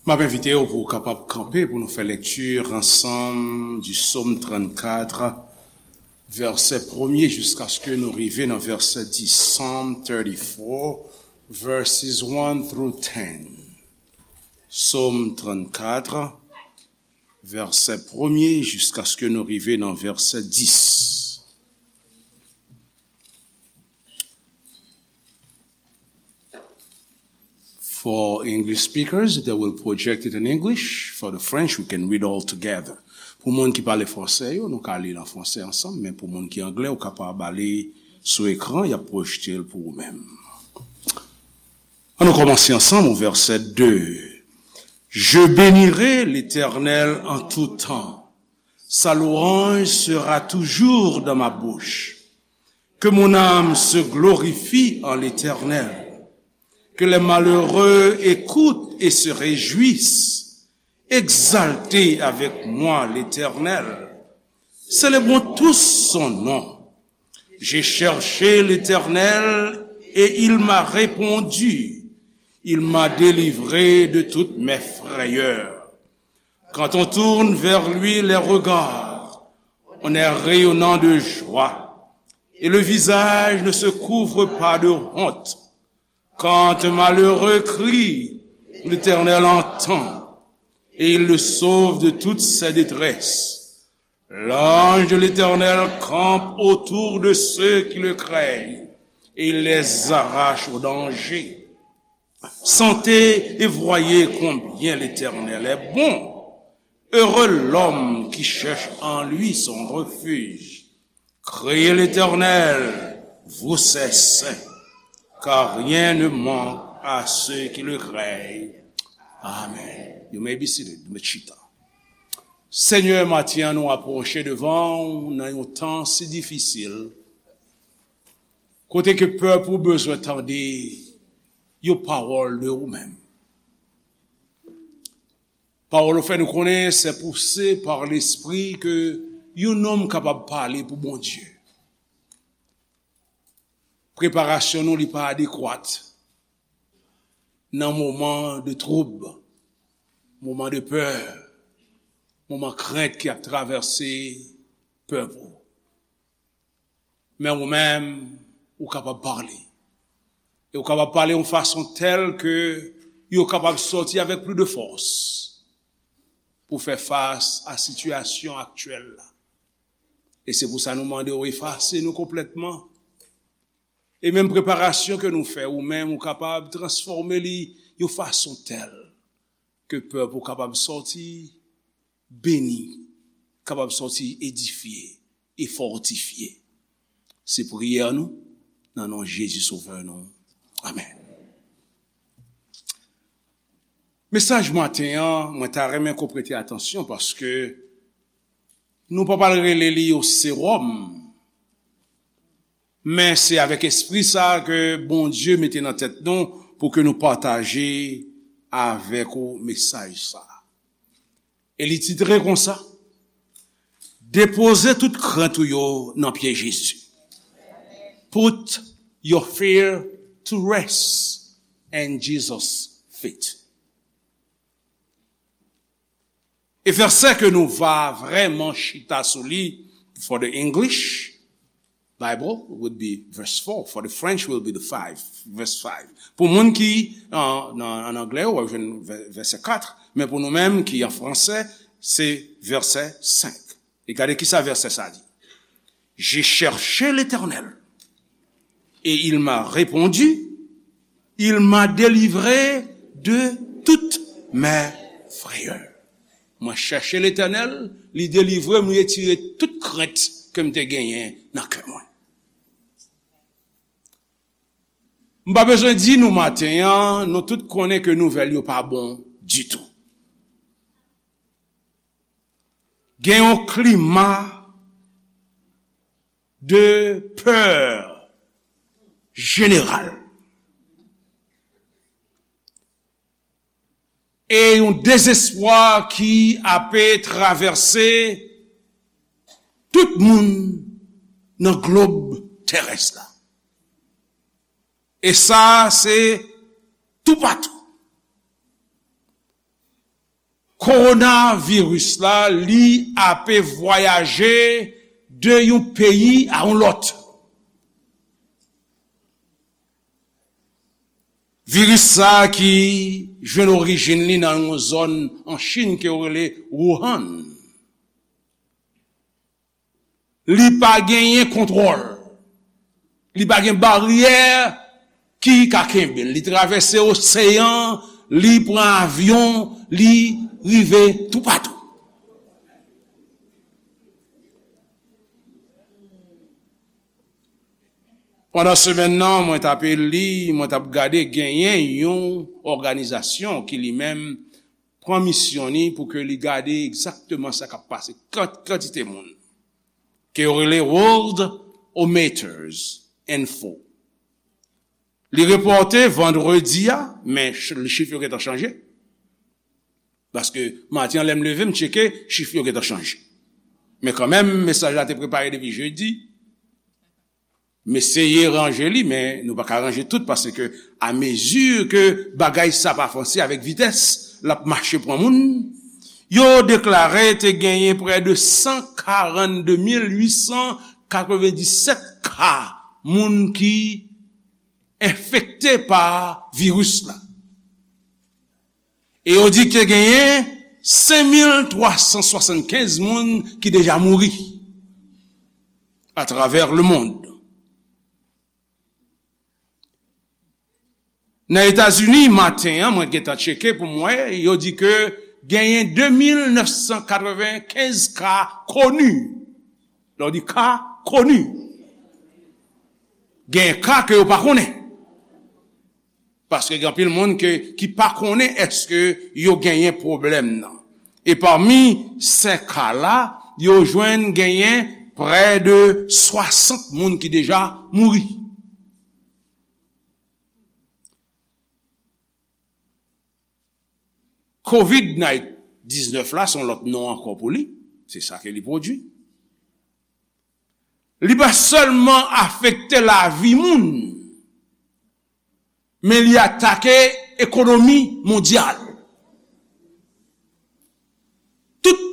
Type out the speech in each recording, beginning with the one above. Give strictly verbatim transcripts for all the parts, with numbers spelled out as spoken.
M ap envite w pou w kapab kanpe pou nou fè lekti ansanm di Sòm trannkat, vèsè premye jiskaske nou rive nan vèsè dis. Psalm thirty-four, verses one through ten. Sòm trannkat, vèsè premye jiskaske nou rive nan vèsè dis. For English speakers, they will project it in English. For the French, we can read all together. Pou moun ki pale fransè yo, nou ka li l an fransè ansanm, men pou moun ki anglè, ou kapab ale sou ekran, y ap pwojte l pou ou menm. Ann nou kòmanse ansanm o vèsè de. Je bénirai l'Éternel en tout temps. Sa louange sera toujours dans ma bouche. Que mon âme se glorifie en l'Éternel. Que les malheureux écoutent et se réjouissent. Exaltez avec moi l'Éternel. Célébrons tous son nom. J'ai cherché l'Éternel et il m'a répondu. Il m'a délivré de toutes mes frayeurs. Quand on tourne vers lui les regards, on est rayonnant de joie, et le visage ne se couvre pas de honte. Quand un malheureux crie, l'Éternel entend, et il le sauve de toutes ses détresses. L'ange de l'Éternel campe autour de ceux qui le craignent, et il les arrache au danger. Sentez et voyez combien l'Éternel est bon. Heureux l'homme qui cherche en lui son refuge. Craignez l'Éternel, vous ses saints, car rien ne manque à ceux qui le craignent. Amen. You may be seated. Mèt chita. Senyè, maten an nou apwoche devan w nan yon tan si difisil, kote ke pèp ou bezwen tande yon pawòl de ou menm. Pawòl ou fè nou konnen, c'est poussé par l'esprit que yon nonm kapab pale pou Bondye. Preparasyon nou, li pa adekwat nan moman de twoub, moman de pè, moman krent ki ap travèse pèp ou. Men ou menm, ou kapab pale. E ou kapab pale yon fason tèl ke yo kapab sòti avèk plis de fòs pou fè fas a sitiyasyon aktyèl la. E se pou sa nou mande w efase nou konplètman. E menm preparasyon ke nou fè, ou menm, ou kapab transfòme li yon fason tèl ke pèp ou kapab sòti beni, kapab sòti edifye e fòtifye. Se priyè nou, nan non Jezi Sovè nou. Amèn. Mesaj maten an, mwen ta renmen ke w prete atansyon paske nou pa pral rele li yon sewòm, men se avèk espri sa ke Bondye mete nan tèt nou pou ke nou pataje avèk ou mesaj sa. E li titre konsa, Depoze tout krent ou yo nan pye Jezi. Put your fear to rest and Jesus' feet. E vèsè ke nou va vrèman chita sou li, for the English Bible would be verse four, for the French will be the five, verse five. Pou moun ki, an, nan, an anglè, w ap jwenn vè-, vèsè kat, men pou nou menm ki an fransè, se vèsè senk. E gade kisa vèsè sa di. J'ai cherché l'Éternel, et il m'a répondu, il m'a délivré de toutes mes frayeurs. Mwen chèche Letènèl, li delivre m, li retire tout krent ke m te genyen nan kè mwen. M pa bezwen di nou maten an, nou tout konnen ke nouvèl yo pa bon ditou. Gen yon klima de pè jeneral e yon dezespwa ki ape travèse tout moun nan glob terès la. E sa, se toupatou. Kowonaviris la, li ape vwayaje de yon peyi a yon lòt. Viris sa a ki jwenn orijin li nan yon zòn an Chin ke yo rele Wuhan. Li pa genyen kontwòl. Li pa gen baryè ki ka kenbe l. Li travèse oseyan, li pran avyon, li rive toupatou. Pandan semèn nan, mwen t ape li, mwen t ap gade, genyen yon òganizasyon ki li menm pran misyon li pou ke li gade egzakteman sa k ap pase, kan-, kantite moun ke yo rele Worldometers Info. Li repòte vandredi a, men ch-, chif yo gentan chanje. Paske maten an, lè m leve, m tcheke, chif yo gentan chanje. Men kanmenm, mesaj la te prepare depi jedi. M eseye ranje li, men nou pa ka ranje tout, paske a mezi ke bagay sa ap avanse avèk vitès, l ap mache pran moun. Yo deklare te genyen prè de san karannde mil uit san katrevenndisèt ka moun ki enfekte pa viris la. E yo di ke genyen senk mil twa san swasannkenz moun ki deja mouri atravè lemonn. Nan Etazini, maten an, mwen gentan tcheke pou m wè, yo di ke genyen de mil nèf san katrevenkenz ka koni. Lè w di ka koni, genyen ka ke yo pa konnen. Paske gen anpil moun ke, ki pa konnen èske yo genyen pwoblèm nan. E pami sèt ka la, yo jwenn genyen prè de swasant moun ki deja mouri. Kovid diznèf la, se yon lòt non ankò pou li. Se sa ke li pwodui. Li pa sèlman afekte lavi moun, men li atake ekonomi mondyal. Tout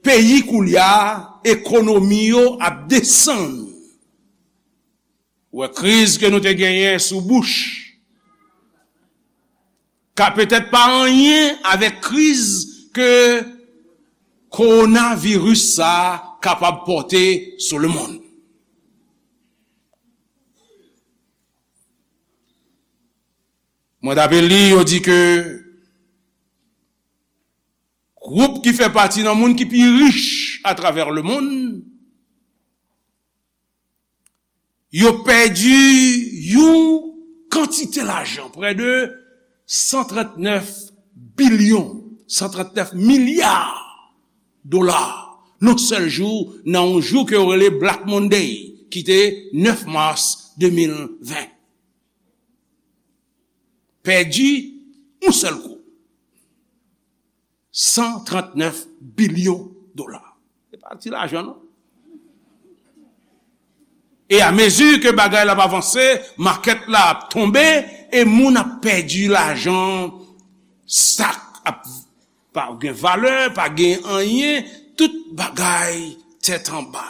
peyi koulye a, ekonomi yo ap desann. Ou wè kriz ke nou te genyen sou Bush, ka petèt pa anyen avèk kriz ke kowonaviris sa a kapab pòte sou lemonn. Mwen t ape li, yo di ke gwoup ki fè pati nan moun ki pi rich atravè lemonn, yo pèdi yon kantite lajan, prè de san trannèf bilyon, san trannèf milya dola, nan sèl jou, nan yon jou ke yo rele Black Monday, ki te nèf mas de mil ven. Pèdi yon sèl kou. San trannèf bilyon dola. Se pa ti lajan, non. E a mezi ke bagay la ap avanse, makèt la ap tonbe, e moun ap pèdi lajan, stòk ap pa gen valè, pa gen anyen, tout bagay tèt anba.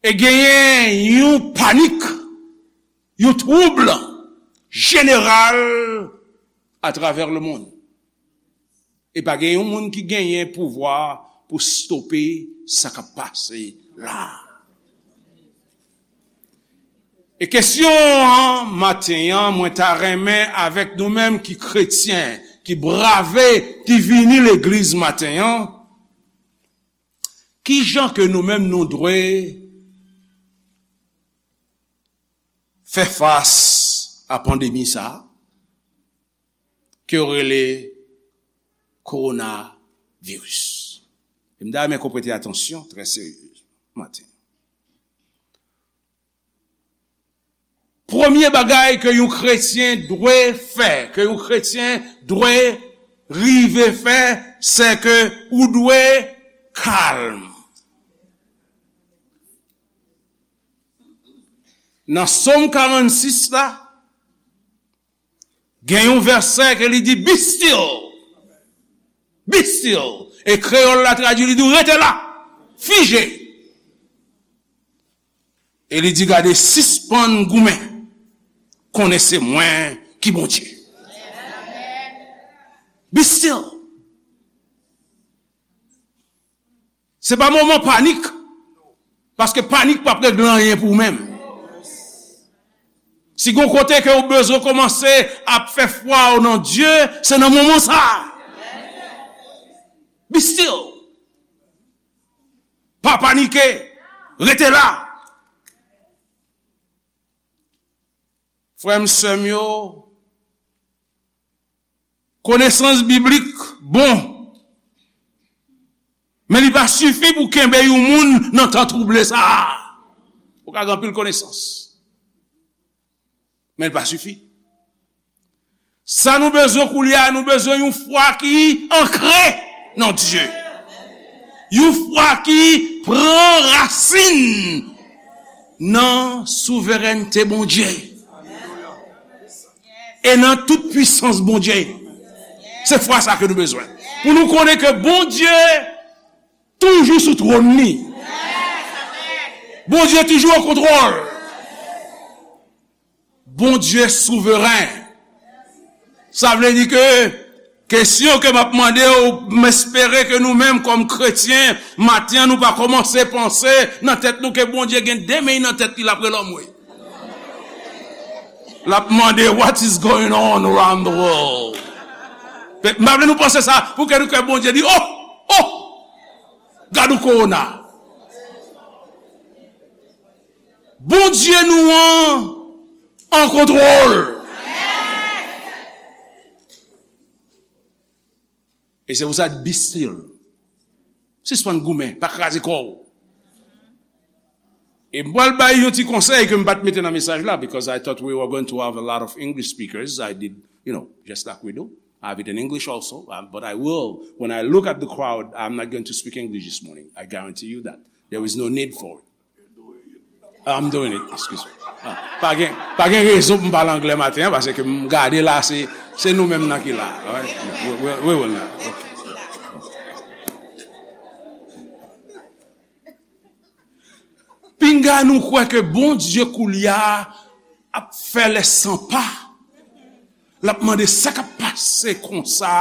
E genyen yon panik, yon twoub jeneral atravè lemonn. E pa gen yon moun ki genyen pouvwa pou stope sa k ap pase la. E kesyon an, maten an, mwen ta renmen avèk nou menm ki kretyen, ki brave, ki vini legliz maten an, ki jan ke nou menm nou dwe fè fas a pandemi sa a, ke yo rele kowonaviris? E m ta renmen ke w prete atansyon trè serye maten. Premye bagay ke yon kretyen dwe fè, ke yon kretyen dwe rive fè, se ke ou dwe kalm. Nan Sòm karannsis la, Gen yon vèsè ke li di, "Be still." Be still. E kreyòl la tradui, li di, "Rete la. Fije." E li di, "Gade, sispann goumen. Konnen se mwen ki Bondye." Be still. Se pa moman panik. Paske panik p ap regle anyen pou ou menm. Si gon kote ke ou bezwen kòmanse ap fè fwa ou nan Dye, se nan moman sa a. Be still. Pa panike. Rete la. Frè m, sè m yo, konesans biblik bon, men li pa sifi pou kenbe yon moun nan tan twouble sa a. Ou ka gen anpil konesans, men li pa sifi. Sa nou bezwen koulye a, nou bezwen yon fwa ki ankre nan Dye. Yon fwa ki pran rasin nan souverènte Bondye e nan tout pwisans Bondye. Se fwa sa ke nou bezwen. Pou nou konnen ke Bondye toujou sou twòn li. Bondye toujou an kontwòl. Bondye souveren. Sa vle di ke kesyon ke m ap mande w, m espere ke nou menm kòm kretyen, maten an nou pa kòmanse panse nan tèt nou ke Bondye gen de men nan tèt li, l ap rele anmwe. L ap mande, "What is going on around the world?" M pa vle nou panse sa, pou ke nou kè Bondye di, "Oh, oh, gad yon kowona." Bondye nou an an kontwòl. E se pou sa, be still. Sispann goumen, pa kraze kò w. E m pral bay yon ti konsèy ke m pa t mete nan mesaj la, because I thought we were going to have a lot of English speakers. I did, you know, just like we do. I have it in English also, uh, but I will. When I look at the crowd, I'm not going to speak English this morning. I guarantee you that. There is no need for it. I'm doing it, excuse me. Ah, pa gen, pa gen rezon pou m pale anglè maten an, paske m gade la, se, se nou menm nan ki la. All right? We, we, we will not. Okay. Pinga nou kwè ke Bondye koulye a ap fè lè san pa. L ap mande sa k ap pase konsa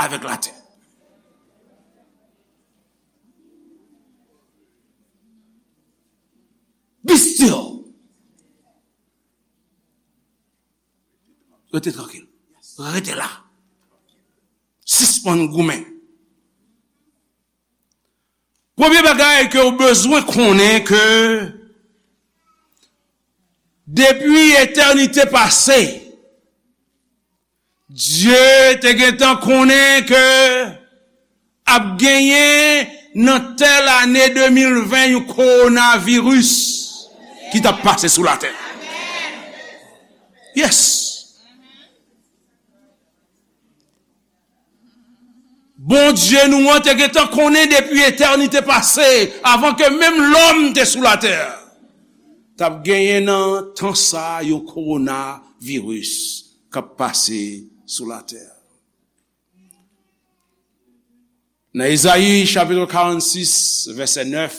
avèk latè. Be still. Rete trankil. Rete la. Sispann goumen. Premye bagay ke w bezwen konnen ke depi etènite pase, Dye te gentan konnen ke ap genyen nan tèl ane de mil ven yon kowonaviris ki t ap pase sou latè. Yes. Bondye nou an te gentan konnen depi etènite pase, avan ke menm lòm te sou latè, t ap genyen nan tan sa a yon kowonaviris k ap pase sou latè. Nan Ezayi chapit karannsis, vèsè nèf,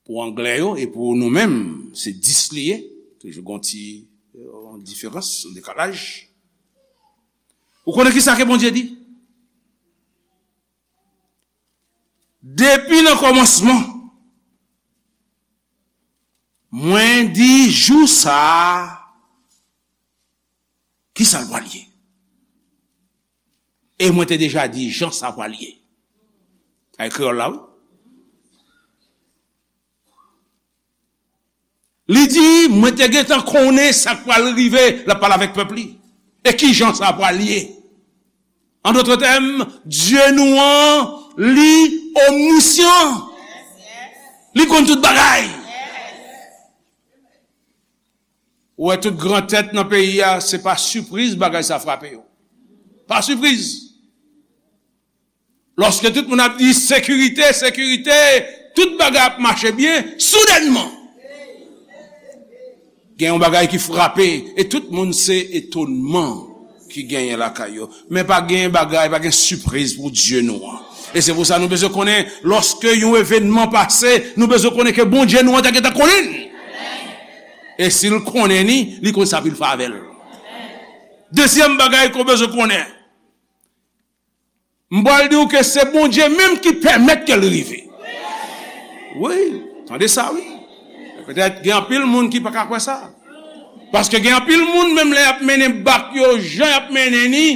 pou anglè yo, e pou nou menm, se dis li ye. Toujou gon ti, yon diferans, yon dekalaj. Ou konnen ki sa ke Bondye di? Depi nan kòmansman, mwen di jou sa a, ki sa l pral ye? E mwen te deja di jan sa pral ye. Ay kreyòl la, wi. Li di, mwen te gentan konnen sa k pral rive, l ap pale avèk pèp li. E ki jan sa pral ye? An dòt tèm, Dye nou an, li omnisyan. Li konn tout bagay. Ou wè tout gran tèt nan peyi a, se pa sipriz bagay sa frape yo. Pa sipriz. Lòske tout moun ap di sekirite, sekirite, tout bagay ap mache byen, soudènman, Gen yon bagay ki frape, e tout moun se etonman ki genyen lakay yo. Men pa gen bagay, pa gen sipriz pou Dye nou an. E se pou sa nou bezwen konnen, lòske yon evènman pase, nou bezwen konnen ke Bondye nou an te gentan konnen l. E si l konnen li, li konn sa pou l fè avè l. Dezyèm bagay ke w bezwen konnen, m pral di w ke se Bondye menm ki pèmèt ke l rive. Wi, tande sa, wi. Petèt gen anpil moun ki pa ka kwè sa. Paske gen anpil moun, menm lè y ap mennen bak yo, jan y ap mennen li,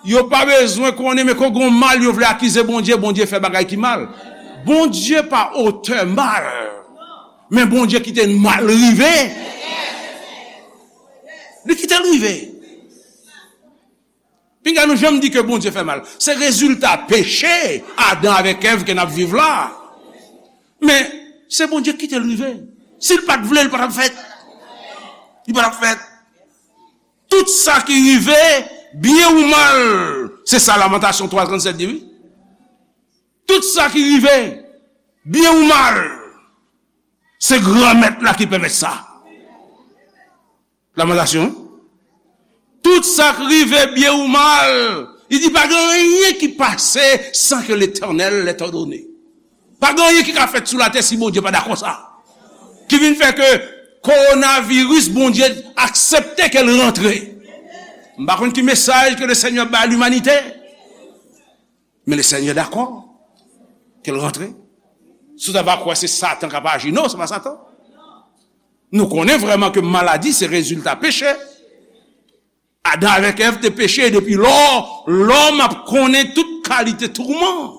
yo pa bezwen konnen, men kon gen mal, yo vle akize Bondye, Bondye fè bagay ki mal. Bondye pa otè mal, men Bondye kite mal rive. Li kite l rive. Pinga nou janm di ke Bondye fè mal. Se rezilta peche Adan avèk Èv ke n ap viv la. Men, se Bondye ki kite l rive. Si l pa t vle, l pa t ap fèt. Li pa t ap fèt. Tout sa ki rive, byen ou mal, se sa Lamantasyon twa trannsèt di, wi. Tout sa ki rive, byen ou mal, se Granmèt la ki pèmèt sa. Lamantasyon. Tout sa k rive, byen ou mal, li di pa gen anyen ki pase san ke Letènèl lè tòdone. Pa gen anyen ki ka fèt sou latè si Bondye pa dakò sa. Ki vin fè ke kowonaviris, Bondye aksepte ke l rantre. M pa konn ki mesaj ke Lesenyè bay limanite. Men Lesenyè dakò ke l rantre. Si w ta va kwè se Satan k ap aji, non, se pa Satan. Nou konnen vrèman ke maladi se rezilta peche. Adan avèk Èv te peche, e depi lò, lòm ap konnen tout kalite touman.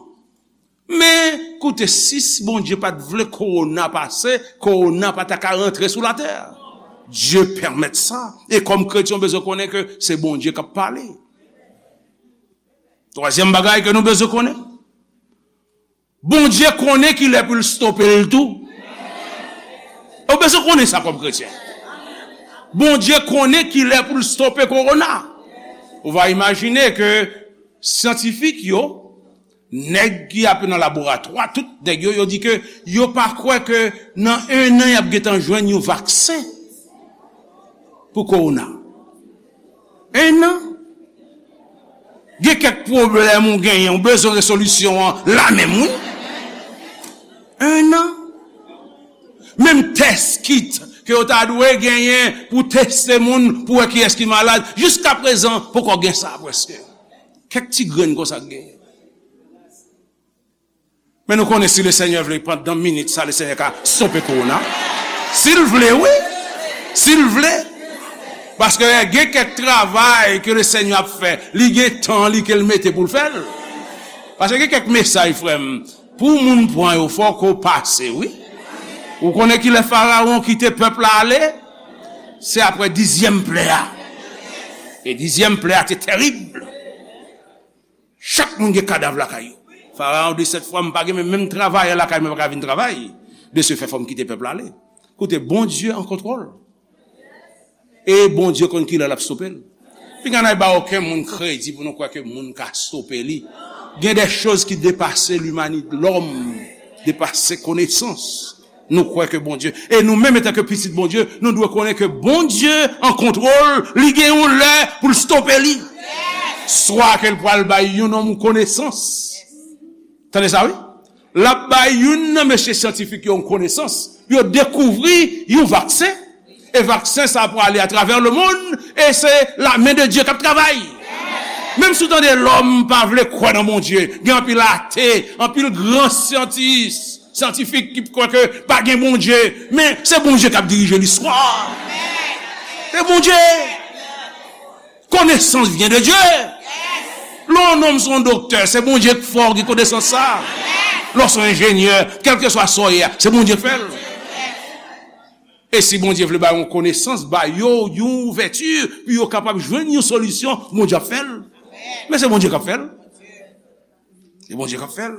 Men, koute, si Bondye pa t vle kowona pase, kowona pa ta ka rantre sou latè. Dye pèmèt sa. E kòm kretyen, w bezwen konnen ke se Bondye k ap pale. Twazyèm bagay ke nou bezwen konnen, Bondye konnen kilè pou l stope l tou. Ou bezwen konnen sa kòm kretyen. Bondye konnen kilè pou l stope kowona. Ou va imajine ke syantifik yo, nèg ki ap nan laboratwa, tout nèg yo, yo di ke yo pa kwè ke nan en an y ap gentan jwenn yon vaksen pou kowona. En an. Gen kèk pwoblèm ou genyen, ou bezwen rezolisyon an la menm, wi. En an. Menm tès kit ke yo ta dwe genyen pou teste moun, pou wè kiyès ki malad, jiskaprezan, poko gen sa prèske. Kèk ti grenn konsa k genyen. Men nou konnen si Lesenyè vle, pandan minit sa, Lesenyè ka stope kowona. Si l vle, wi. Si l vle. Paske gen kèk travay ke Lesenyè ap fè, li gen tan li ke l mete pou l fè l. Paske gen kèk mesaj, frè m, pou moun pran yo, fòk ou pase, wi. Ou konnen kilè Farawon kite pèp la ale? Se apre dizyèm plè a. E dizyèm plè a te tèrib. Chak moun gen kadav lakay yo. Farawon di sèt fwa, "M pa gen menm, menm travayè lakay mwen pa ka vin travay." De se fè, fò m kite pèp la ale. Koute, Bondye an kontwòl. E Bondye konn kilè l ap stope l. Pinga n ay ba okenn moun kredi pou nou kwè ke moun ka stope li. Gen de choz ki depase limanite, lòm, depase konesans. Nou kwè ke Bondye, e nou menm, antanke pitit Bondye, nou dwe konnen ke Bondye an kontwòl, li gen yon lè pou l stope li. Swa ke l pral bay yon nonm yon konesans. Tande sa, wi. L ap bay youn nan mesye syantifik yo yon konesans. Yo dekouvri yon vaksen. E vaksen sa prale atravè lemonn. E se lamen de Dye k ap travay. Menm si w tande lòm pa vle kwè nan Bondye, gen anpil ate, anpil gran syantis, syantifik ki kwè ke pa gen Bondye. Men se Bondye k ap dirije listwa. Se Bondye. Connaissance vient de Dieu. Lè yon nonm se yon doktè, se Bondye k fè w gen konesans sa. Lè w se yon enjenyè, kèlkeswa sa w ye a, se Bondye k fè l. E si Bondye vle ba yo yon konesans, ba yo yon ouvèti pou yo kapab jwenn yon solisyon, Bondye ap fè l. Men se Bondye k ap fè l. Se Bondye k ap fè l.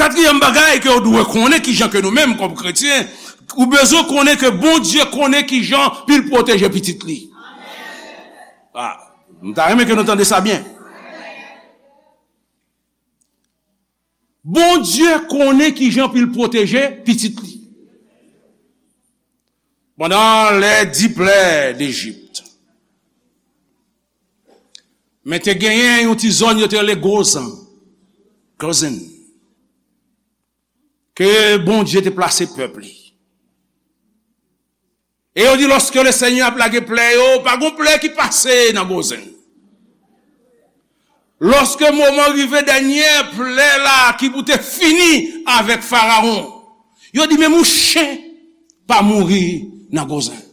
Katriyèm bagay ke w dwe konnen, kijan ke nou menm kòm kretyen, ou bezwen konnen ke Bondye konnen kijan pou l pwoteje pitit li. Ah, m ta renmen ke nou tande sa byen. Bondye konnen kijan pou l pwoteje pitit li. Pandan lè di plè Lejip, men te genyen yon ti zòn yo te rele Gozan, Gozan, ke Bondye te plase pèp li. E yo di, lòske Lesenyè ap lage plè yo, pa gon plè ki pase nan Gozan. Lòske moman rive dènyè plè la ki pou te fini avèk Farawon, yo di, menm yon chen pa mouri nan Gozan.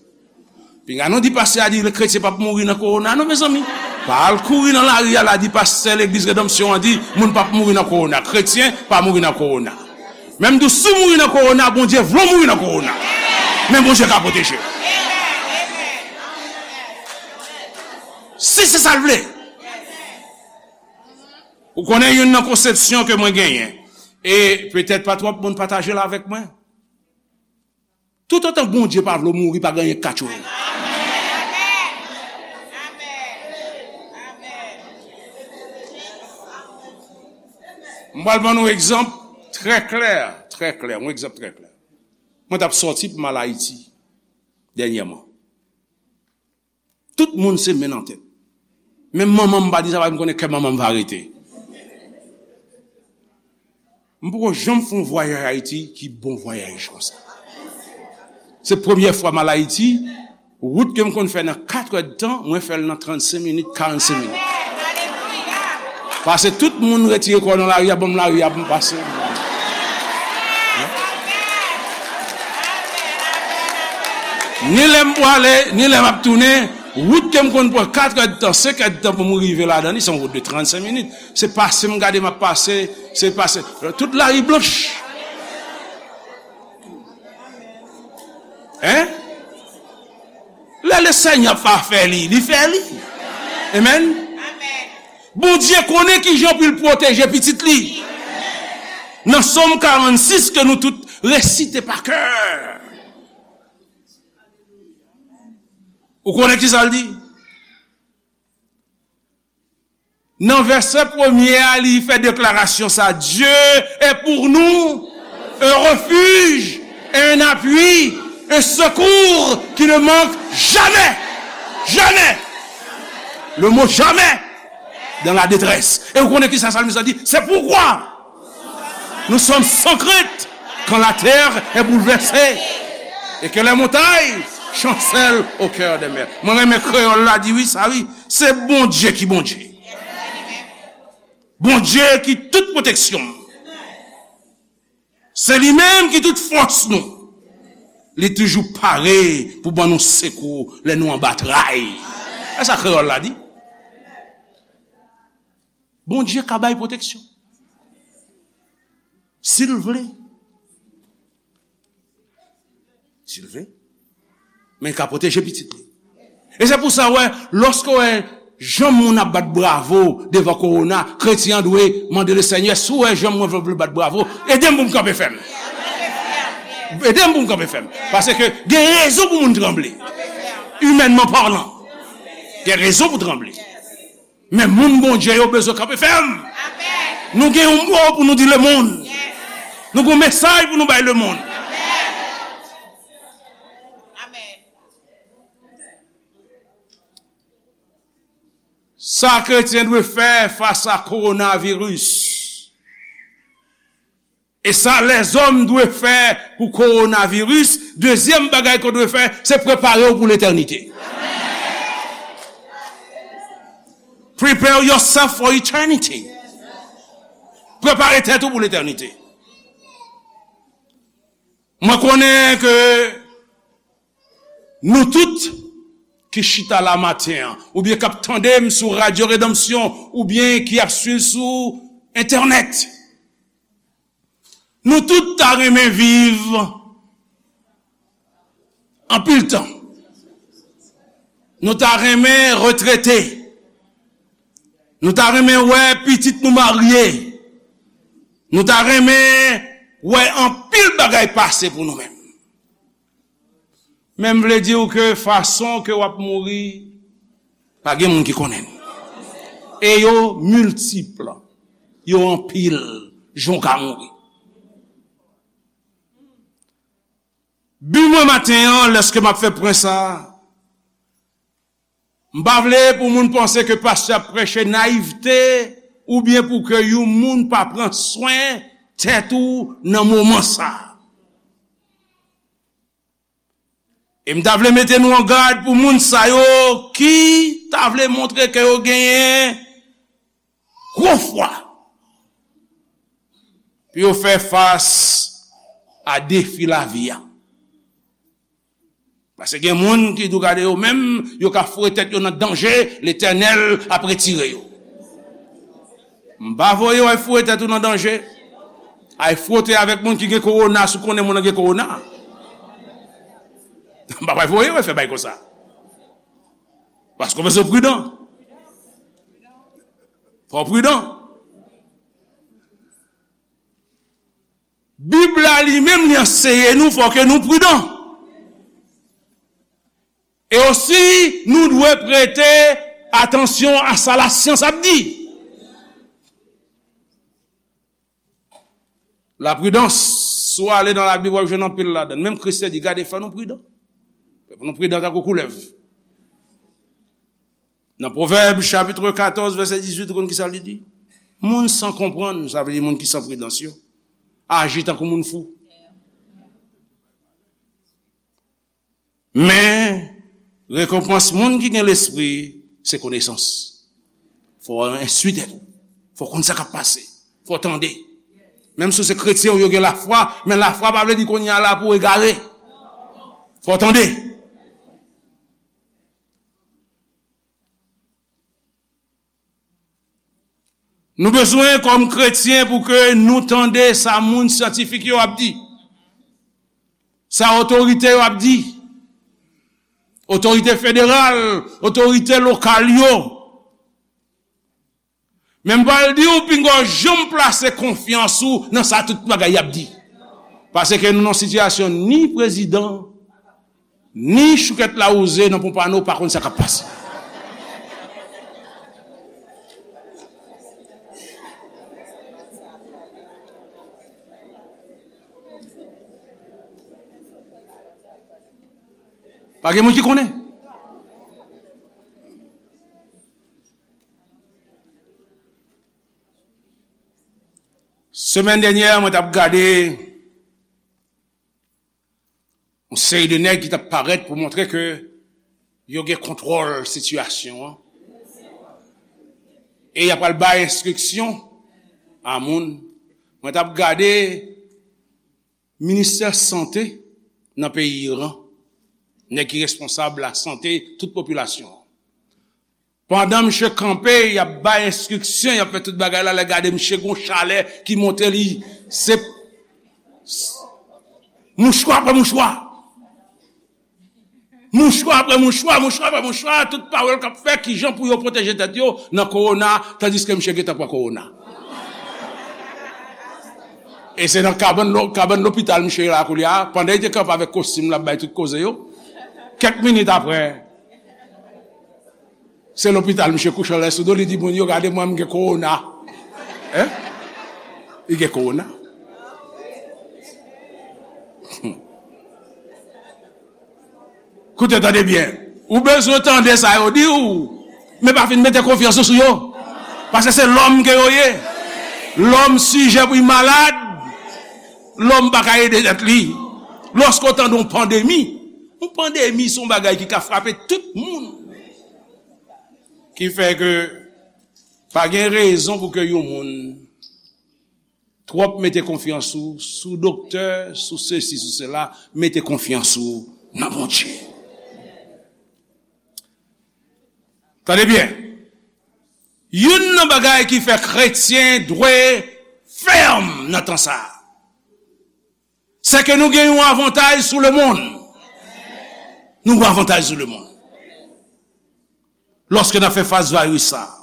Pinga nou di pastè a di kretyen p ap mouri nan kowona non, mezanmi. Pa al kouri nan lari a la di pastè legliz Redanmsyon an di moun p ap mouri nan kowona. Kretyen pa mouri nan kowona. Menm di w si w mouri nan kowona, Bondye vle w mouri nan kowona. Men Bondye ka pwoteje w. Si se sa l vle. Ou konnen youn nan konsepsyon ke mwen genyen. E petèt pa twòp moun pataje l avèk mwen. Toutotan Bondye pa vle w mouri, pa gen anyen k ka tchwe w. M pral ban nou egzanp trè klè, trè klè, yon egzanp trè klè. Mwen t ap sòti pou m al Ayiti dènyèman. Tout moun se men nan tèt. Menm manman m pa di sa, paske m konnen kè manman m va rete. M poko janm fè yon vwayaj Ayiti ki bon vwayaj konsa. Se premyè fwa m al Ayiti, wout ke m konn fè nan katrè d tan, mwen fè l nan trannsenk minit, karannsenk minit. Paske tout moun retire kò nan lari a, ban m lari a pou m pase. Ni lè m prale, ni lè m ap tounen, wout ke m konn pran katrè d tan, senk è d tan pou m rive ladan li, se yon wout de trannsenk minit. Se pase m gade m ap pase, se pase. Tout lari blanch. Hein? Lè Lesenyè pa fè li, li fè li. Amen. Bondye konnen kijan pou l pwoteje pitit li. Nan Sòm karannsis ke nou tout resite pa kè. Ou konnen kisa l di? Nan vèsè premye a, li fè deklarasyon sa, Dieu est pour nous un refuge, un appui, un secours qui ne manque jamais. Jamais. Le mot jamais dans la détresse. E ou konnen kisa salmis la di? C'est pourquoi nous sommes sans crainte quand la terre est bouleversée et que les montagnes chancellent au cœur des mers. Mwen renmen kreyòl la di wi, sa wi. Se Bondye ki Bondye. Bondye ki tout pwoteksyon. Se li menm ki tout fòs nou. Li toujou pare pou ban nou sekou lè nou anba tray. E sa kreyòl la di. Bondye ka bay pwoteksyon. Si l vle. Si l vle. Men l ka pwoteje pitit li. E se pou sa, wè, lòske w wè jan moun ap bat bravo devan kowona, kretyen an dwe mande Lesenyè, si w wè jan mwen vle bat bravo, ede m pou m kanpe fèm. Ede m pou m kanpe fèm. Paske gen rezon pou moun tranble. Imènman palan. Gen rezon pou tranble. Men moun Bondye yo bezwen kanpe fèm. Nou gen yon mo pou nou di lemonn. Nou gen yon mesaj pou nou bay lemonn. Sa kretyen dwe fè fas a kowonaviris. E sa lèzòm dwe fè pou kowonaviris, dezyèm bagay ke w dwe fè, se prepare w pou letènite. Prepare yourself for eternity. Prepare tèt ou pou letènite. Mwen konnen ke nou tout ki chita la maten an, oubyen k ap tande m sou Radyo Redanmsyon, oubyen ki ap swiv sou entènèt, nou tout ta renmen viv anpil tan. Nou ta renmen retrete. Nou ta renmen wè pitit nou marye. Nou ta renmen wè anpil bagay pase pou nou menm. Men m vle di w ke fason ke w ap mouri, pa gen moun ki konnen l. E yo miltip, yo anpil, jan w ka mouri. Bi mwen maten an, lèske m ap fè pwen sa a, m pa vle pou moun panse ke pastè ap preche nayivte oubyen pou ke yon moun pa pran swen tèt ou nan moman sa a. E m ta vle mete nou an gad pou moun sa yo ki ta vle montre ke yo genyen gwo fwa pou yo fè fas a defi lavi a. Paske gen moun ki tou gade yo menm, yo ka foure tèt yo nan danje, Letènèl ap retire yo. M pa voye w al foure tèt ou nan danje. Al fwote avèk moun ki gen kowona, si w konnen moun nan gen kowona. M pa pral voye w al fè bagay konsa. Paske w bezwen pridan. Fò w pridan. Bib la li menm li anseye nou fò ke nou pridan. E osi, nou dwe prete atansyon a sa lasyans ap di. Lapridans, si w ale nan Labib, w ap jwenn anpil ladan l. Menm Kris te di, gade, fò nou pridan. Fò nou pridan tankou koulèv. Nan Pwovèb, chapit katòz, vèsè dizuit, ou konn ki sa li di? Moun san konprann, sa vle di moun ki san pridans yo, aji tankou moun fou. Men, rekonpans moun ki gen lespri, se konesans. Fò w enstwi tèt ou. Fò w konn sa k ap pase. Fò w tande. Menm si w se kretyen, ou yo gen lafwa, men lafwa pa vle di kounye a la pou w egare. Fò w tande. Nou bezwen, kòm kretyen, pou ke nou tande sa moun syantifik yo ap di, sa otorite yo ap di, otorite federal, otorite lokal yo. Men m pral di w, pinga w janm plase konfyans ou nan sa tout bagay y ap di. Paske nou nan sitiyasyon ni prezidan, ni choukèt lawouze nan Pompano pa konn sa k ap pase. Pa gen moun ki konnen. Semèn dènyè, mwen t ap gade yon seri de nèg ki t ap parèt pou montre ke yo gen kontwòl sitiyasyon an. E y ap pral bay enstriksyon a moun. Mwen t ap gade ministè sante nan peyi Iran, nèg ki responsab lasante tout popilasyon an. Pandan misye kanpe, y ap bay enstriksyon, y ap fè tout bagay la, lè gade misye gon chalè ki monte li, se mouchwa apre mouchwa. Mouchwa apre mouchwa, mouchwa apre mouchwa, tout pawòl k ap fè kijan pou yo pwoteje tèt yo nan kowona, tandiske misye gentan pran kowona. E se nan kabann lo-, kabann lopital misye ye la koulye a, pandan li te kanpe avèk kostim l ap bay tout koze yo. Kèk minit apre, se lopital misye kouche anlè sou do, li di moun yo, gade mwen, m gen kowona. Hein? Li gen kowona. Koute, tande byen. Ou bezwen tande sa yo di w, men pa fin mete konfyans ou sou yo. Paske se lòm ke yo ye. Lòm sijè pou l malad. Lòm pa ka ede tèt li. Lòske w tande yon pandemi, yon pandemi se yon bagay ki ka frape tout moun. Ki fè ke pa gen rezon pou ke yon moun twòp mete konfyans ou sou doktè, sou sesi, sou sela, mete konfyans ou nan Bondye. Tande byen. Youn nan bagay ki fè kretyen dwe fèm nan tan sa a, se ke nou gen yon avantaj sou lemonn. Nou gen avantaj sou lemonn. Lòske n ap fè fas vayis sa a.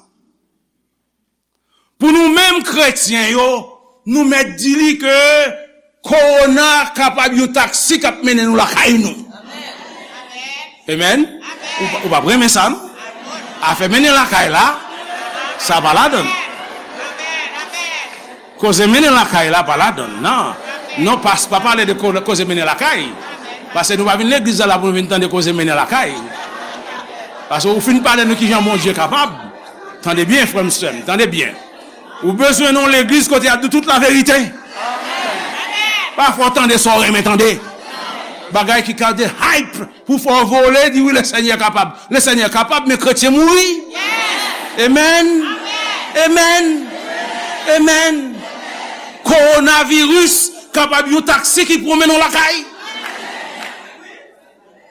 Pou nou menm kretyen yo, nou mèt di li ke kowona kapab yon taksi k ap mennen nou lakay nou. Amen. Ou pa, ou pa renmen sa, non? Afè mennen lakay la, sa pa ladann. Koze mennen lakay la pa ladann, non. Non, pas, pa pale de ko-, koze mennen lakay. Paske nou pa vin legliz la, la pou nou vin tande koze mennen lakay. Paske ou fin pale nou kijan Bondye kapab. Tande byen, frè m, sè m, tande byen. Ou bezwen nan yon legliz kote y ap di tout laverite. Pa fè w tande sa w renmen tande. Bagay ki ka de hype pou fè w vole, di wi, Lesenyè kapab. Lesenyè kapab, men kretyen mouri. Amen. Amen. Amen. Kowonaviris kapab yon taksi ki pran w mennen w lakay.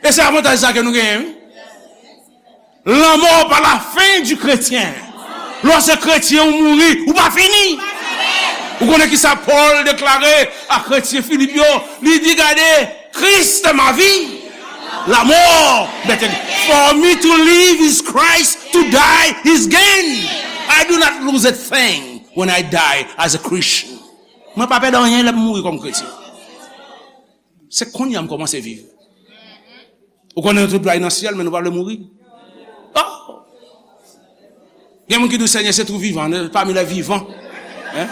E se avantaj sa ke nou genyen, wi. La mort pas la fin du chrétien. Lè w se kretyen, ou mouri, ou pa fini. Ou konnen ki sa Pòl deklare a kretyen Filip yo? Li di, gade, Christ est ma vie. La mort m'est gain. For me to live is Christ, to die is gain. I do not lose a thing when I die as a Christian. Mwen pa pèdi anyen lè m mouri kòm kretyen. Se kounye a m kòmanse viv. Ou konnen nou tout dwe al nan syèl, men nou pa vle mouri. Oh! Gen moun ki di, Senyè, se tou vivan, pami lè vivan. Hein?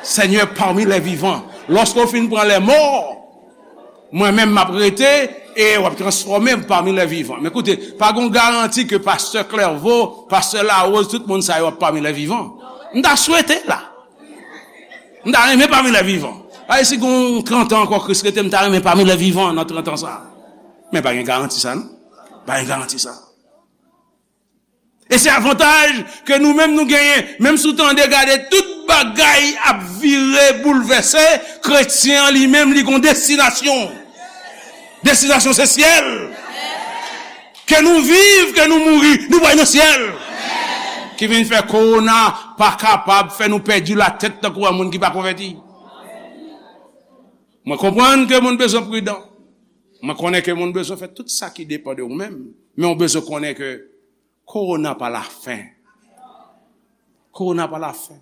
Seigneur parmi les vivants. Lòske w fin pran lè mò, mwen menm m ap rete e w ap transfòme m pami lè vivan. Men koute, pa gon garanti ke pastè Clairvaux, pastè Larose, tout moun sa yo ap pami lè vivan. M ta swete la. M ta renmen pami lè vivan. Ay, si gon trant an ankò Kris rete, m ta renmen pami lè vivan nan trant an sa. Men pa gen garanti sa, non. Pa gen garanti sa. E se avantaj ke nou menm nou genyen. Menm si w tande gade tout bagay ap vire, boulvèse, kretyen an li menm, li gon destinasyon. Destinasyon se syèl. Ke nou viv, ke nou mouri, nou pral nan syèl. Ki vin fè kowona pa kapab fè nou pèdi latèt tankou yon moun ki pa konvèti. Mwen konprann ke moun bezwen pridan. Mwen konnen ke moun bezwen fè tout sa ki depann de ou menm. Men w bezwen konnen ke kowona pa lafen. Kowona pa lafen.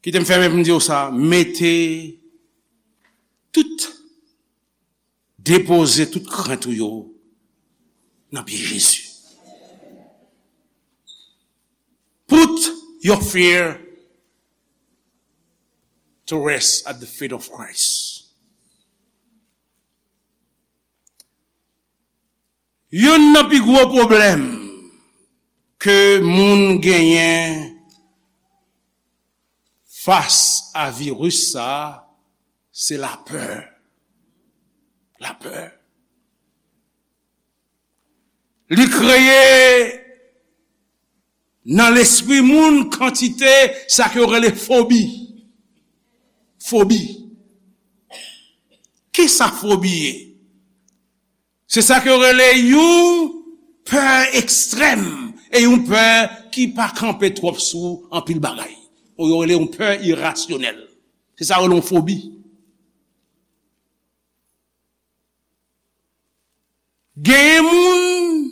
Kite m fèmen pou m di w sa, mete tout, depoze tout krent ou yo nan pye Jezi. Put your fear to rest at the feet of Christ. Youn nan pi gwo pwoblèm ke moun genyen fas a viris sa a, se lapè. Lapè. Li kreye nan lespri moun kantite sa ke yo rele fobi. Fobi. Kisa fobi ye? Se sa ke yo rele yon pè ekstrèm e yon pè ki pa kanpe twòp sou anpil bagay. Yo rele yon pè irasyonèl. Se sa yo rele yon fobi. Genyen moun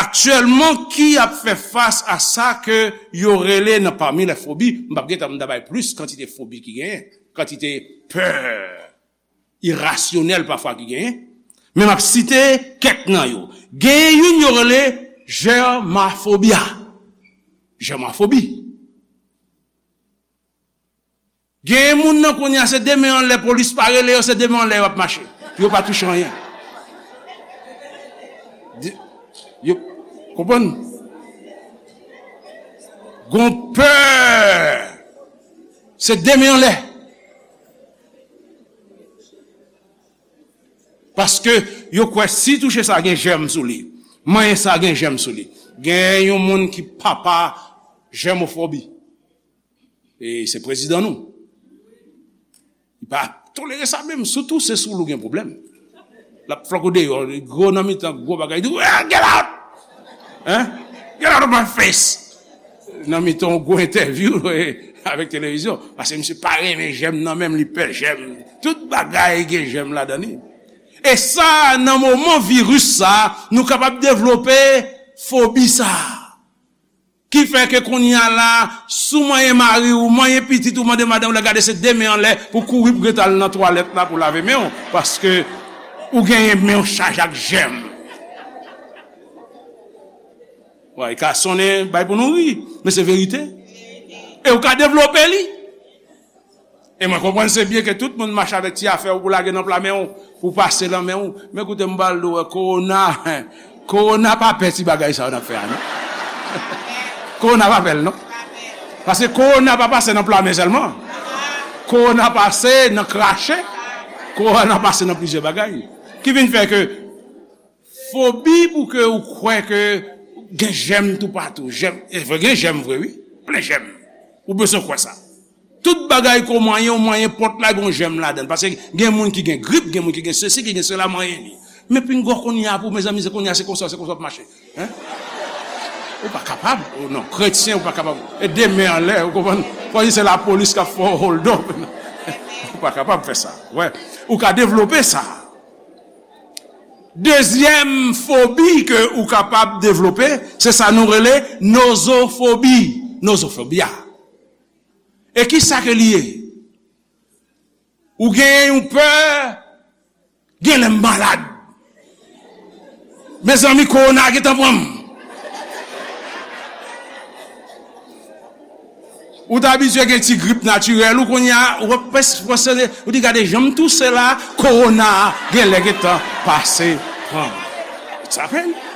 aktyèlman ki ap fè fas a sa ke yo rele nan pami lè fobi, m p ap gentan m ta bay plis kantite fobi ki genyen, kantite pè irasyonèl pafwa ki genyen, men m ap site kèk nan yo. Genyen youn yo rele jèmafobia. Jèmafobi. Genyen moun nan kounye a, se de men anlè, polis pa rele yo, se de men anlè yo ap mache. Pou yo pa touche anyen. Di- Yo konprann? Gon pè. Se de men anlè. Paske yo kwè si touche sa gen jèm sou li. Manyen sa gen jèm sou li. Gen yon moun ki papa jèmofobi. E se prezidan nou. Li pa tolere sa menm. Sitou se sou l ou gen pwoblèm. L ap flòk ou deyò, li gwo nan mitan, gwo bagay, li di, "Well, get out! Hein? Get out of my face!" Nan mitan yon gwo entèvyou avèk televizyon. Paske misye pa renmen jèm nan menm, li pè jèm. Tout bagay gen jèm ladan li. E sa, nan moman viris sa, nou kapab devlope fobi sa. Ki fè ke kounye a la, si w manyen mari w, manyen pitit ou, mande madanm w la gade se de men anlè pou kouri pou gentan al nan twalèt la pou lave men w, paske ou genyen men w chaje ak jèm. Wi, e ka sonnen bay pou nou ri, men se verite. E ou ka devlope li. E mwen konprann se byen ke tout moun mache avèk ti afè w pou lage nan pla men w, pou pase nan men w. Men koute m pral di w, kowona, kowona pa pè ti bagay sa yo n ap fè a, non. Kowona pa pè l, non. Paske kowona pa pase nan pla men sèlman. Kowona pase nan krache. Kowona pase nan plizyè bagay. Ki vin fè ke fobi pou ke ou kwè ke gen jèm toupatou. Jèm, e vre, gen jèm vre, wi. Plen jèm. Ou bezwen kwè sa. Tout bagay ke w manyen, w manyen pòt la, gen yon jèm ladan l. Paske gen moun ki gen grip, gen moun ki gen sesi, ki gen sela, manyen li. Men pinga w kounye a pou, mezanmi, se kounye a, se konsa, se konsa w ap mache. Hein? Ou pa kapab. Ou non, kretyen, ou pa kapab. E de men anlè, ou konprann? Fò di se lapolis k ap fè w hold up. Ou pa kapab fè sa. Wè. Ou ka devlope sa. Dezyèm fobi ke ou kapab devlope, se sa nou rele nozofobi. Nozofobi a. E ki sa ke li ye? Ou genyen yon pè, gen lè m malad. Mezanmi, kowona gentan pran m. Ou t abitye gen ti grip natirèl, ou kounye a, ou ap pwes-, pwesone, ou di gade jan m touse la, kowona a gen lè gentan pase pran m. It's happened.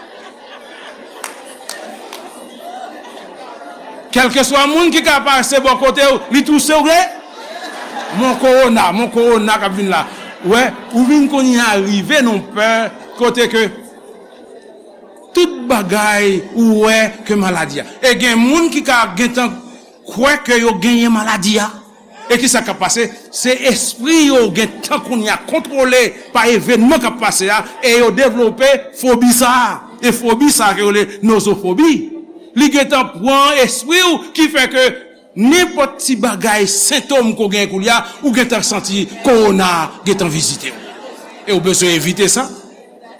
Kèlkeswa moun ki ka pase bò kote w, li touse w, gen mon kowona, mon kowona k ap vin la. Wè, ou vin kounye a rive nan pè kote ke tout bagay ou wè ke maladi a. E gen moun ki ka gentan kwè ke yo genyen maladi a. E ki sa k ap pase? Se espri yo gentan kounye a kontwole pa evènman k ap pase a, e yo devlope fobi sa a. E fobi sa a ke yo rele nozofobi. Li gentan pran espri w, ki fè ke nenpòt ti bagay, sentòm ke w genyen koulye a, ou gentan santi kowona gentan vizite w. E w bezwen evite sa.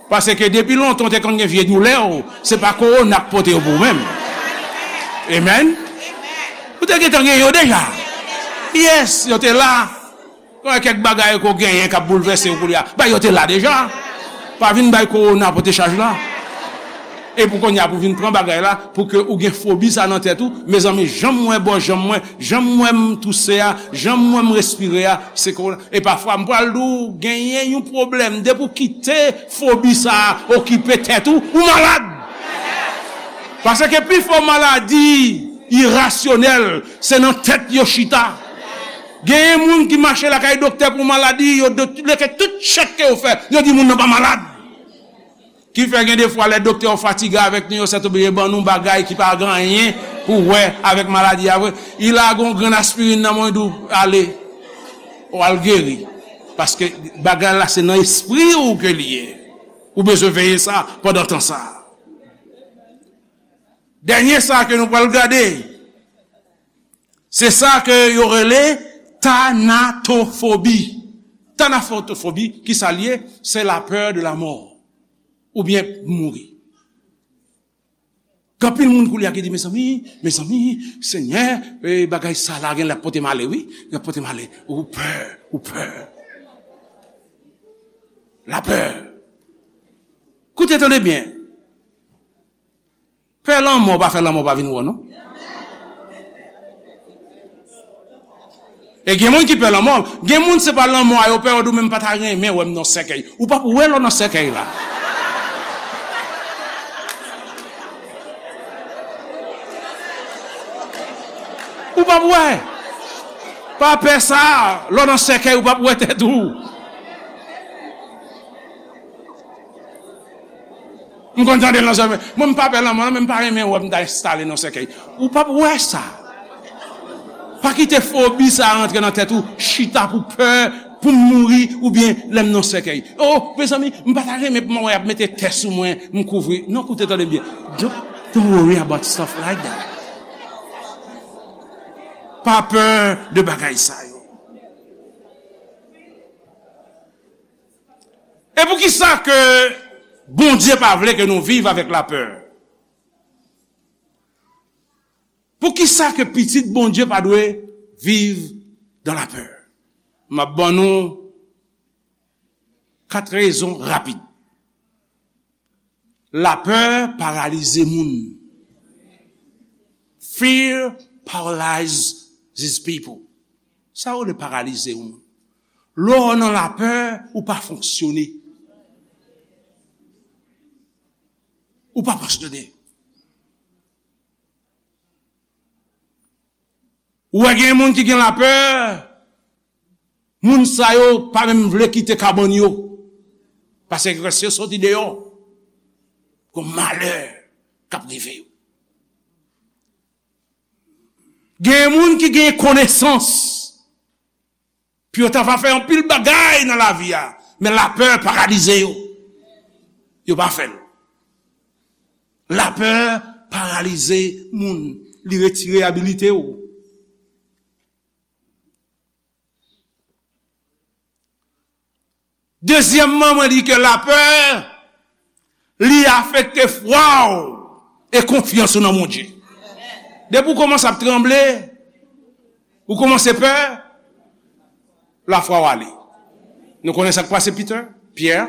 Paske depi lontan w te konn gen vye doulè w, se pa kowona k pote yo pou ou menm. Amen. Ou te gentan gen yo deja. Yes, yo te la. Gen kèk bagay ke w genyen k ap boulvèse w koulye a. Bay yo te la deja. Pa vin bay kowona pote chaj la. E pou kounye a pou vin pran bagay la, pou ke ou gen fobi sa nan tèt ou, mezanmi, jan m wè bò janm mwen, jan m wè m touse a, jan m wè m respire a, se kowona. E pafwa, m pral di w, genyen yon pwoblèm. Depi w kite fobi sa a okipe tèt ou, ou malad. Paske pifò maladi irasyonèl, se nan tèt yo chita. Genyen moun ki mache lakay doktè pou maladi, yo do-, leke tout chèk ke yo fè, yo di moun nan pa malad. Ki fè gen de fwa lè doktè yo fatige avèk nou, yo sètoblije ban nou bagay ki pa gen anyen pou wè avèk maladi a vre. Li lage yon grenn aspirin nan men w, li di w, ale, w al geri. Paske bagay la se nan espri w ke li ye. Ou bezwen veye sa pandan tan sa. Dènye sa ke nou pral gade, se sa ke yo rele tanatofobi. Tanatofobi, ki sa l ye? C'est la peur de la mort. Oubyen mouri. Gen anpil moun koulye a ki di, mezanmi, mezanmi, Senyè, e, bagay sa la gen lè ap pote m ale, wi. L ap pote m ale. Ou pè, ou pè. Lapè. Koute, tande byen. Pè lanmò pa fè lanmò pa vin wè w, non. E gen moun ki pè lanmò. Gen moun se pa lanmò a yo pè, yo di w menm pa ta renmen wè m nan sèkèy. Ou p ap wè lè w nan sèkèy la. Ou p ap wè. Pa pè sa, lè w nan sèkèy, ou p ap wè tèt ou. M konn tande l nan zòrèy mwen. Mwen, m pa pè lanmò, non, men m pa renmen wè m ta enstale nan sèkèy. Ou p ap wè sa. Pa kite fobi sa a rantre nan tèt ou, chita pou pè, pou m mouri, oubyen lè m nan sèkèy. O, mezanmi, m pa ta renmen pou m wè y ap mete tè sou mwen, m kouvri. Non, koute, tande byen. Don't, don't worry about stuff like that. Pa pè de bagay sa yo. E poukisa ke Bondye pa vle ke nou viv avèk lapè? Poukisa ke pitit Bondye pa dwe viv dans la peur? M ap ban nou kat rezon rapid. Lapè paralize moun. Fear paralyzes people. Sa yo rele paralize yon moun. Lè w nan lapè, ou pa fonksyone. Ou pa fonksyone. Ou wè gen moun ki gen lapè, moun sa yo pa menm vle kite kabann yo. Paske lè yo soti deyò, gon malè k ap rive yo. Gen moun ki gen konesans, pou yo ta va fè anpil bagay nan lavi a, men lapè paralize yo. Yo pa fè l. Lapè paralize moun, li retire abilite w. Dezyèmman, mwen di ke lapè, li afekte fwa w e konfyans ou nan Bondye. Depi w kòmanse ap tranble, ou kòmanse pè, lafwa w ale. Nou konnen sa k pase Peter, Pyè.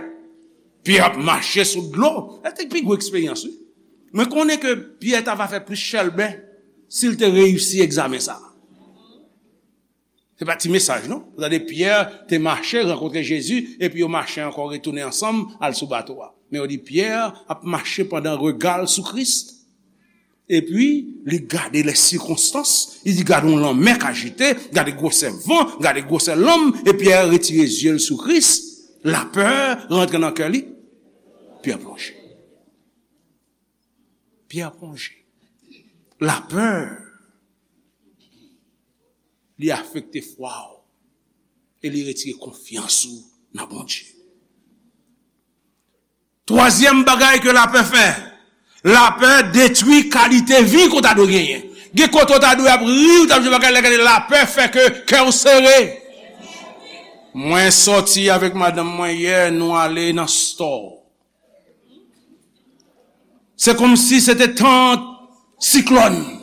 Pyè ap mache sou dlo. Sa te pi gwo eksperyans, wi. Mwen konnen ke Pyè ta va fè plis chèlbè si l te reyisi egzamen sa a. Se pa ti mesaj, non. Ou tande Pyè te mache, rankontre Jezi, epi yo mache ankò, retounen ansanm, al sou bato a. Men yo di Pyè ap mache pandan rega l sou Kris. Epi, li gade lè sikonstans, li di gade yon lanmè k ajite, gade gwosè van, gade gwosè lanm, epi Pyè retire zye l sou Kris, lapè rantre nan kè li, Pyè plonje. Pyè plonje. Lapè, li afekte fwa w e li retire konfyans ou nan Bondye. Twazyèm bagay ke lapè fè, lapè detwi kalite vi ke w ta dwe genyen. Gen kote w ta dwe ap ri, w t ap jwe bagay, lè gade lapè fè ke kè w sere. Mwen sòti avèk madanm mwen yè, nou ale nan store. Se kòmsi se te tan siklòn.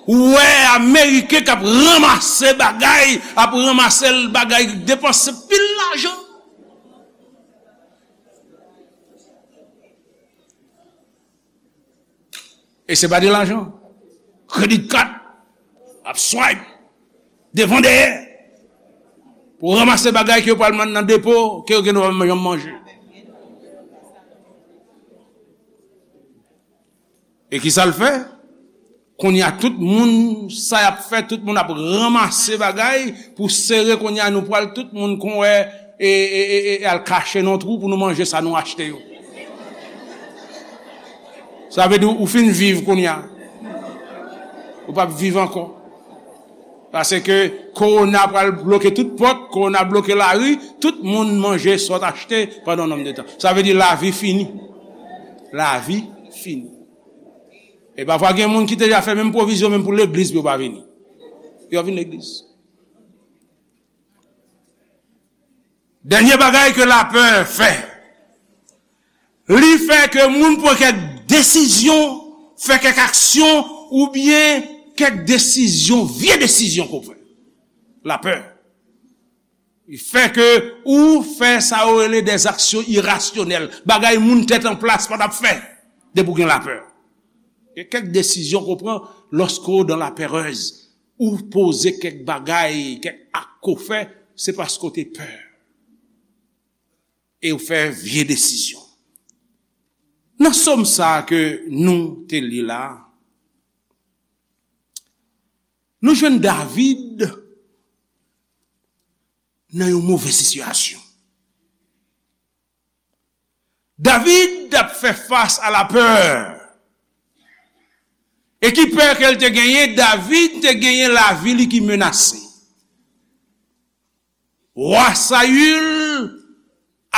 Ou wè Ameriken k ap ranmase bagay, ap ranmase bagay, depanse pil lajan. E se pa de lajan. Credit card, ap swipe, devan dèyè. Pou ranmase bagay ke yo pral mande nan depo, ke yo gen dwa pa janm manje. E ki sa l fè? Kounye a, tout moun, sa y ap fè, tout moun ap ranmase bagay pou sere. Kounye a, nou pral tout moun kon wè, e, e, e, e, e al kache nan twou pou nou manje sa nou achte yo. Sa vle di ou fin viv kounye a. Ou p ap viv ankò. Paske kowona pral bloke tout pòt, kowona bloke lari, tout moun manje sa w t achte pandan yon nonm de tan. Sa vle di lavi fini. Lavi fini. E pafwa gen moun ki te deja fè menm pwovizyon menm pou legliz pou yo pa vini. Yo vin legliz. Dènye bagay ke lapè fè, li fè ke moun pran kèk desizyon, fè kèk aksyon, oubyen kèk desizyon, vye desizyon ke w fè. Lapè. Li fè ke ou fè sa yo rele des actions irrationnelles. Bagay moun tèt an plas pa t ap fè depi w gen lapè. Gen kèk desizyon ke w pran lòske w dans la peur. Ou poze kèk bagay, kèk ak ke w fè, se paske w te pè. E w fè vye desizyon. Nan sòm sa a ke nou te li la, nou jwenn David nan yon move sitiyasyon. David t ap fè fas a lapè. E ki pè ke l te genyen? David te genyen lavi li ki menase. Wa Sayil,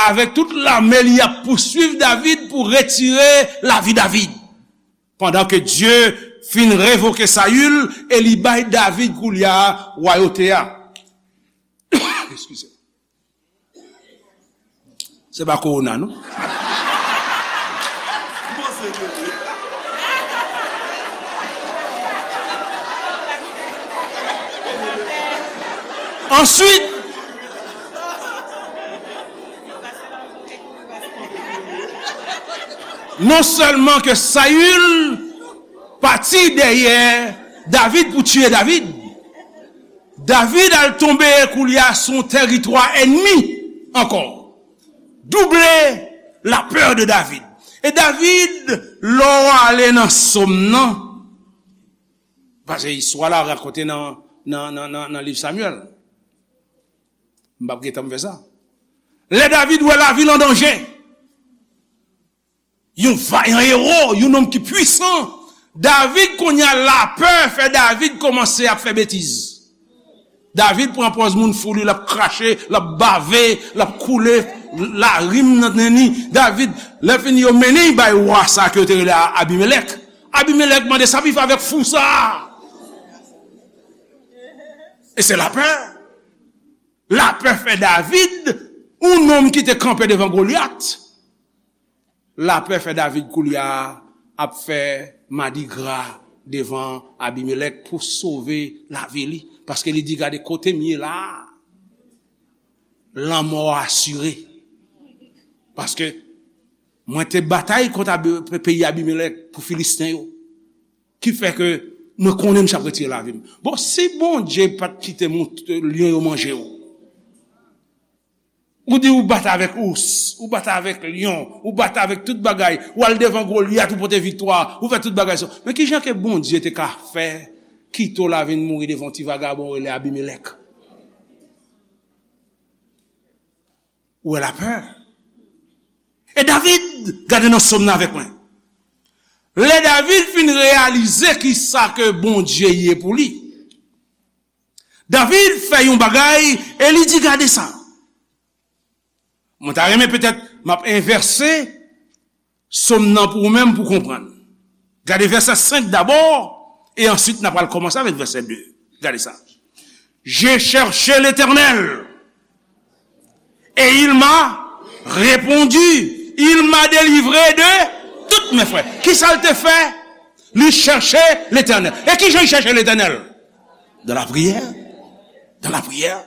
avèk tout lame li, ap pouswiv David pou retire lavi David. Pandan ke Dye fin revoke Sayil e li bay David koulye a wayote a. Eskize. Se pa kowona, non. Answit, non sèlman ke Sayil pati dèyè David pou tiye David. David al tonbe koulye a sou yon tèritwa ènmi ankò. Double la peur de David. E David, lè w ale nan sòm nan, paske istwa la rakonte nan, nan, nan, nan, nan liv Samyèl. M p ap gentan fè sa. Lè David wè lavil an danje, yon vayan ewo, yon nonm ki pwisan, David, kounye a, lapè fè David kòmanse ap fè betiz. David pran pòz moun fou, li, l ap krache, l ap bave, l ap koule larim nan nen li. David, lè fini, yo mennen l bay wa sa ke yo te rele a-, Abimelèk. Abimelèk mande, "Sa pou fè avèk fou sa a?" E se lapè. Lapè fè David, yon nonm ki te kanpe devan Golyat. Lapè fè David koulye a ap fè madigra devan Abimelèk pou sove lavi li. Paske li di, "Gade kote m ye la a, lanmò asire." Paske mwen te batay kont Abi-, peyi Abimelèk pou Filisten yo. Ki fè ke mwen konnen m t ap retire lavi m. Bon, si Bondye pa t kite mouton, lyon yo manje w, ou di ou bat avèk ous, ou bat avèk lyon, ou bat avèk tout bagay, ou al devan Golyat, ou pote viktwa, ou fè tout bagay sa. Men ki jan ke Bondye te ka fè kite w la vin mouri devan yon ti vagabon rele Abimelèk? Ou wè lapè. E David, gade nan sòm nan avèk mwen. Lè David fin reyalize ki sa ke Bondye ye pou li, David fè yon bagay e li di, "Gade sa." Mwen ta renmen petèt m ap envèse sòm nan pou ou menm pou konprann. Gade vèsè senk dabò, e answit n a pral kòmanse avèk vèsè de. Gade sa. J'ai cherché l'Éternel, et il m'a répondu, il m'a délivré de toutes mes frayeurs. Ki sa l te fè? Li chèche Letènèl. E ki jan li chèche Letènèl? Dans la prière. Dans la prière.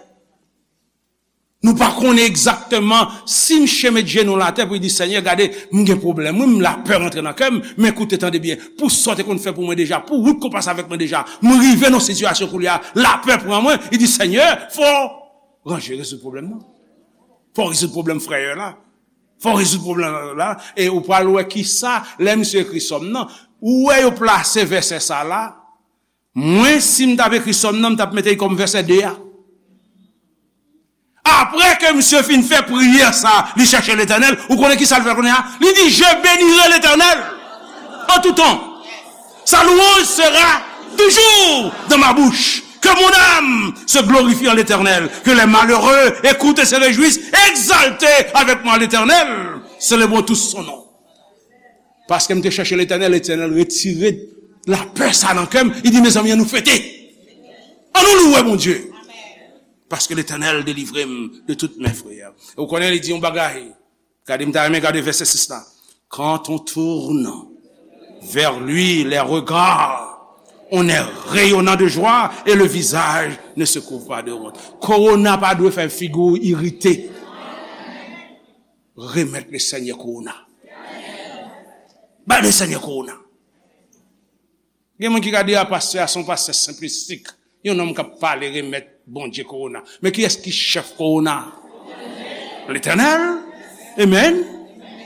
Nou pa konnen egzakteman si misye met jenou l atè pou li di, "Senyè, gade, m gen pwoblèm, wi, m lapè rantre nan kè m, men koute, tande byen, pou sa w te konn fè pou mwen deja, pou wout ke w pase avèk mwen deja, m rive nan sitiyasyon koulye a, lapè pran mwen." Li di, "Senyè, fò w ranje, rezoud pwoblèm nan. Fò w rezoud pwoblèm frè yo la. Fò w rezoud pwoblèm la." E ou pral wè ki sa, lè misye ekri sòm nan, ou wè yo plase vèsè sa la, mwen, si m t ap ekri sòm nan, m t ap mete l kòm vèsè de a. Apre ke misye fin fè priyè sa, li chèche Letènèl, ou konnen ki sa l fè kounye a? Li di, "Je bénirai l'Éternel en tout temps. Sa louange sera toujours dans ma bouche. Que mon âme se glorifie en l'Éternel. Que les malheureux écoutent et se réjouissent. Exaltez avec moi l'Éternel. Célébrons tous son nom." Paske m te chèche Letènèl, Letènèl retire lapè sa nan kè m. Li di, "Mezanmi, ann nou fete. Ann nou louwe Bondye. Paske Letènèl delivre m de tout mes frayeurs." E w konnen, li di yon bagay. Gade, m ta renmen gade vèsè sis la. Quand on tourne vers lui les regards, on est rayonnant de joie et le visage ne se couvre pas de honte. Kowona pa dwe fè figi w irite. Remèt le Senyè kowona. Bay le Senyè kowona. Gen moun ki ka di, "A, pastè a se yon pastè senplistik. Yon nonm k ap pale remèt Bondye kowona." Men kiyès ki chèf kowona? Letènèl. Amen.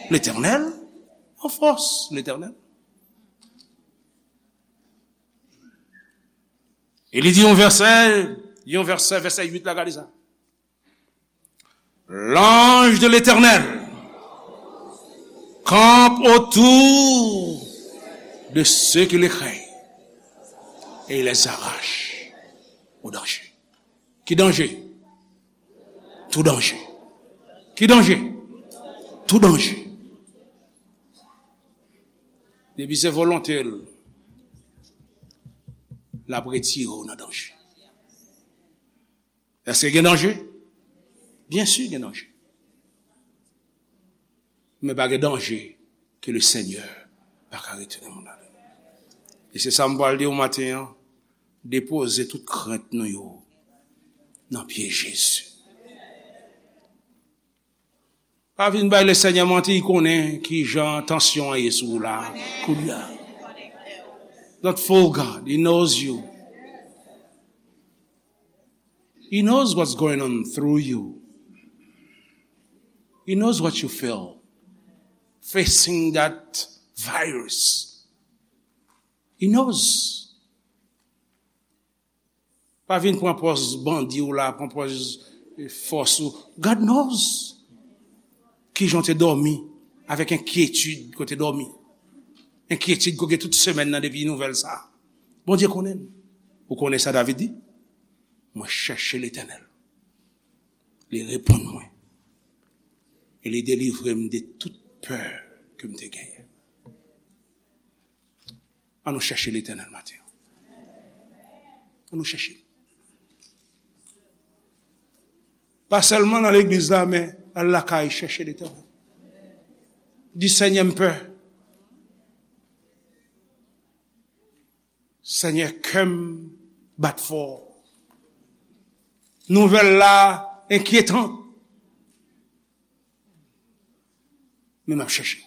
Letènèl. An fòs, Letènèl. E li di yon vèsè, yon vèsè, vèsè uit la, gade sa. L'ange de l'Éternel campe autour de ceux qui le craignent et il les arrache au danger. Ki danje? Tou danje. Ki danje? Tou danje. Depi se volonte l, l ap retire w nan danje. Èske gen danje? Byen si gen danje. Men pa gen danje ke le Senyè pa ka retire moun ladan. E se sa m pral di w maten an, depoze tout krent nou yo nan pye Jezi. Pa vin bay le Senyè manti, li konnen ki jan tansyon an ye sou ou la, kounye a. Don't fool God. He knows you. He knows what's going on through you. He knows what you feel facing that virus. He knows. Pa vin pran pòz bandi w la, pran pòz, eh, fòs ou. God knows. Kijan w te dòmi avèk enkyetid ke w te dòmi. Enkyetid ke w gen tout semèn nan depi nouvèl sa a. Bondye konnen l. Ou konnen sa David di? Mwen chèche Letènèl. Li reponn mwen. E li delivre m de tout pè ke m te genyen. An nou chèche Letènèl maten an. An nou chèche. Pa sèlman nan legliz la, men al lakay chèche Letènèl. Di, Senyè, m pè. Senyè, kè m bat fò. Nouvèl la enkyetan. Men m ap chèche.